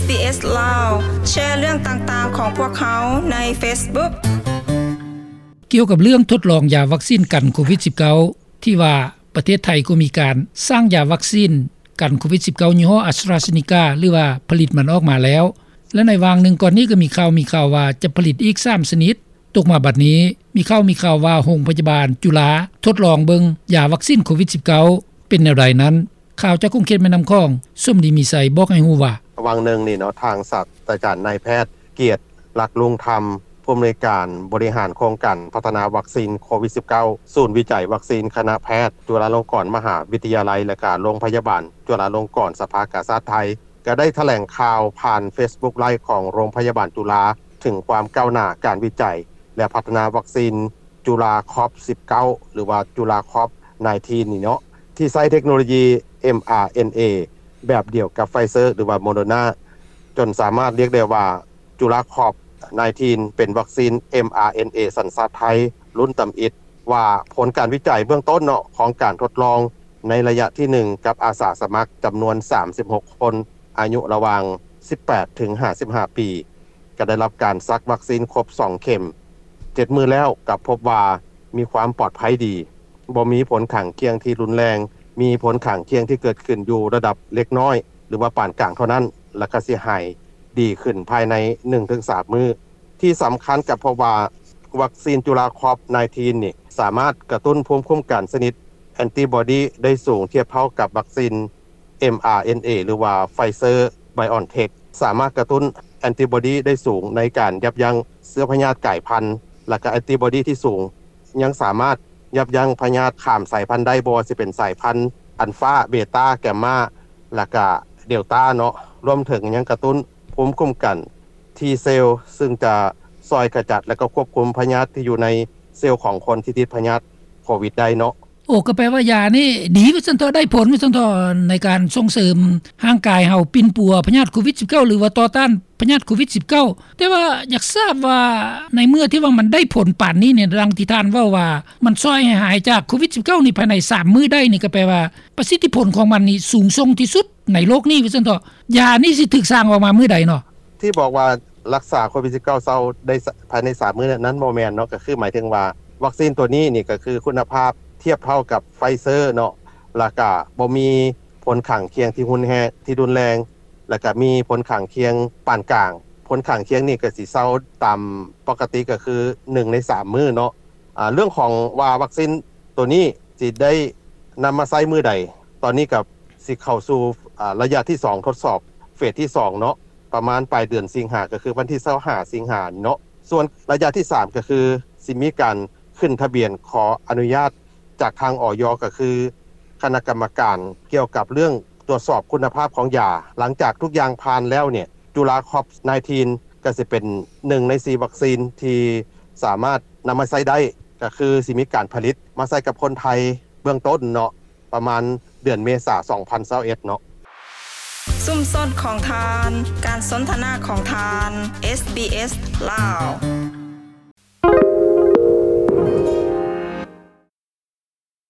ບີເອສ ລາວ ແຊເລື່ອງຕ່າງໆຂອງພວກເຮົາໃນເຟສບຸກ. ກ່ຽວກັບເລື່ອງທົດລອງຢາວັກຊີນກັນໂຄວິດສິບເກົ້າ ທີ່ວ່າປະເທດໄທກໍມີການສ້າງຢາວັກຊີນກັນໂຄວິດສິບເກົ້າຍີ່ຫໍ້ AstraZeneca ຫຼືວ່າຜະລິດມັນອອກມາແລ້ວ ແລະ ໃນຫວ່າງໜຶ່ງກ່ອນນີ້ກໍມີຂ່າວ ມີຂ່າວວ່າຈະຜະລິດອີກສາມຊະນິດ. ຕົກມາບັດນີ້ ມີຂ່າວ ມີຂ່າວວ່າໂຮງພະຍາບານຈຸລາທົດລອງເບິ່ງຢາວັກຊີນໂຄວິດສິບເກົ້າ ເປັນແນວໃດນັ້ນ? ຂ່າວຈາກຂົງເຂດແມ່ນ້ຳຂອງ ສົມດີ ມີໄຊ ບອກໃຫ້ຮູ້ວ່າ ຫວ່າງໜຶ່ງນີ້ເນາະ ທາງສາດສະດາຈານນາຍແພດ ກຽດ ລັກລຸງທຳ ຜູ້ອຳນວຍການບໍລິຫານໂຄງການພັດທະນາວັກຊີນໂຄວິດສິບເກົ້າ ສູນວິໄຈວັກຊີນຄະນະແພດຈຸລາລົງກອນມະຫາວິທະຍາໄລ ແລະ ກະໂລງພະຍາບານຈຸລາລົງກອນສະພາກາຊາດໄທ ກະໄດ້ຖະແຫຼງຂ່າວຜ່ານເຟສບຸກໄລຟ໌ຂອງໂຮງພະຍາບານຈຸລາ ເຖິງຄວາມກ້າວໜ້າການວິໄຈ ແລະ ພັດທະນາວັກຊີນຈຸລາຄອບສິບເກົ້າ ຫຼືວ່າຈຸລາຄອບ ໜາຍທີນນີ້ເນາະ ທີ່ໃຊ້ເທັກໂນໂລຢີ ເອັມອາເອັນເອ ແບບດຽວກັບ Pfizer ຫຼືວ່າ Moderna ຈົນສາມາດລຽກໄດ້ວ່າ ຈຸລາຄອບ ໜາຍທີນ ເປັນວັກຊີນ ເອັມອາເອັນເອ ສັນຊາດໄທ ລຸ້ນຕຳອິດ ວ່າຜົນການວິໄຈເບື້ອງຕົ້ນເນາະ ຂອງການທົດລອງໃນໄລຍະທີໜຶ່ງ ກັບອາສາສະໝັກຈຳນວນສາມສິບຫົກຄົນ ອາຍຸລະຫວ່າງສິບແປດເຖິງຫ້າສິບຫ້າປີ ກໍໄດ້ຮັບການສັກວັກຊີນຄົບສອງເຂັມ ເຈັດມື້ແລ້ວ ກໍພົບວ່າມີຄວາມປອດໄພດີ, ບໍ່ມີຜົນຂ້າງຄຽງທີ່ຮຸນແຮງ, ມີຜົນຂ້າງຄຽງທີ່ເກີດຂຶ້ນຢູ່ລະດັບເລັກນ້ອຍ ຫຼືວ່າປານກາງເທົ່ານັ້ນ ແລ້ວກໍຊິຫາຍດີຂຶ້ນພາຍໃນໜຶ່ງເຖິງສາມມື້. ທີ່ສຳຄັນກໍພົບວ່າ ວັກຊີນຈຸລາຄອບ ໜາຍທີນ ນີ້ ສາມາດກະຕຸ້ນພູມຄຸ້ມກັນຊະນິດແອນຕິບອດີໄດ້ສູງທຽບເທົ່າກັບວັກຊີນ ເອັມອາເອັນເອ ຫຼືວ່າ Pfizer BioNTech ສາມາດກະຕຸ້ນແອນຕິບອດີໄດ້ສູງໃນການຢັບຢັ້ງເຊື້ອພະຍາດກາຍພັນ ແລະ ກະແອນຕິບອດີທີ່ສູງຍັງສາມາດຍັບຢັ້ງພະຍາດຂ້າມສາຍພັນໄດ້ ບໍ່ວ່າຊິເປັນສາຍພັນ Alpha Beta Gamma ແລະ ກະ Delta ເນາະ ລວມເຖິງຍັງກະຕຸ້ນພູມຄຸ້ມກັນ T cell ຊຶ່ງຈະຊ່ອຍຂະຈັດ ແລະ ກະຄວບຄຸມພະຍາດທີ່ຢູ່ໃນເຊວຂອງຄົນທີ່ຕິດພະຍາດໂຄວິດໄດ້ເນາະ. ໂອ້ ກໍແປວ່າຢານີ້ດີວ່າຊັ້ນເຖາະ ໄດ້ຜົນວ່າຊັ້ນເຖາະ ໃນການສົ່ງເສີມຮ່າງກາຍເຮົາປິ່ນປົວພະຍາດໂຄວິດສິບເກົ້າ ຫຼືວ່າຕໍ່ຕ້ານພະຍາດໂຄວິດສິບເກົ້າ. ແຕ່ວ່າຢາກຊາບວ່າ ໃນເມື່ອທີ່ວ່າມັນໄດ້ຜົນປານນີ້ນີ້ ດັ່ງທີ່ທ່ານເວົ້າວ່າ ມັນຊ່ອຍໃຫ້ຫາຍຈາກໂຄວິດສິບເກົ້ານີ້ພາຍໃນສາມມື້ໄດ້ນີ້ ກໍແປວ່າປະສິດທິຜົນຂອງມັນນີ້ສູງສົ່ງທີ່ສຸດໃນໂລກນີ້ວ່າຊັ້ນເຖາະ. ຢານີ້ຊິຖືກສ້າງອອກມາມື້ໃດເນາະ? ທີ່ບອກວ່າລັກສາໂຄວິດສິບເກົ້າເຊົາໄດ້ພາຍໃນສາມມື້ນັ້ນບໍ່ແມ່ນເນາະ, ກໍຄືໝາຍເຖິງວ່າວັກຊີນຕົວນີ້ນີ້ກໍຄືຄຸນນະພາບທຽບເທົ່າກັບ Pfizer ເນາະ ແລ້ວກະບໍ່ມີຜົນຂ້າງຄຽງທີ່ຮຸນແຮງ ທີ່ຮຸນແຮງ ແລ້ວກະມີຜົນຂ້າງຄຽງປານກາງ. ຜົນຂ້າງຄຽງນີ້ກໍຊິເຊົາຕາມປົກກະຕິ ກໍຄືໜຶ່ງໃນສາມມື້ເນາະ. ອາ ເລື່ອງຂອງວ່າວັກຊີນຕົວນີ້ຊິໄດ້ນຳມາໃຊ້ມື້ໃດ, ຕອນນີ້ກໍຊິເຂົ້າສູ່ ອາ ໄລຍະທີສອງ ທົດສອບເຟສທີສອງເນາະ ປະມານປາຍເດືອນສິງຫາ ກໍຄືວັນທີຊາວຫ້າສິງຫານີ້ເນາະ. ສ່ວນໄລຍະທີສາມ ກໍຄືຊິມີການຂຶ້ນທະບຽນຂໍອະນຸຍາດຈາກທາງ ອຢ ກໍຄືຄະນະກຳມະການກ່ຽວກັບເລື່ອງ ตรวจสอบคุณภาพของยา หลังจากทุกอย่างผ่านแล้วเนี่ย จุฬาคอป สิบเก้า ก็สิเป็นหนึ่งในสี่วัคซีนที่สามารถนำมาใช้ได้ ก็คือสิมีการผลิตมาใช้กับคนไทยเบื้องต้นเนาะ ประมาณเดือนเมษา สองพันยี่สิบเอ็ด เนาะ. ຊຸມຊົນຂອງທ່ານ, ການສົນທະນາຂອງທ່ານ SBS ລາວ.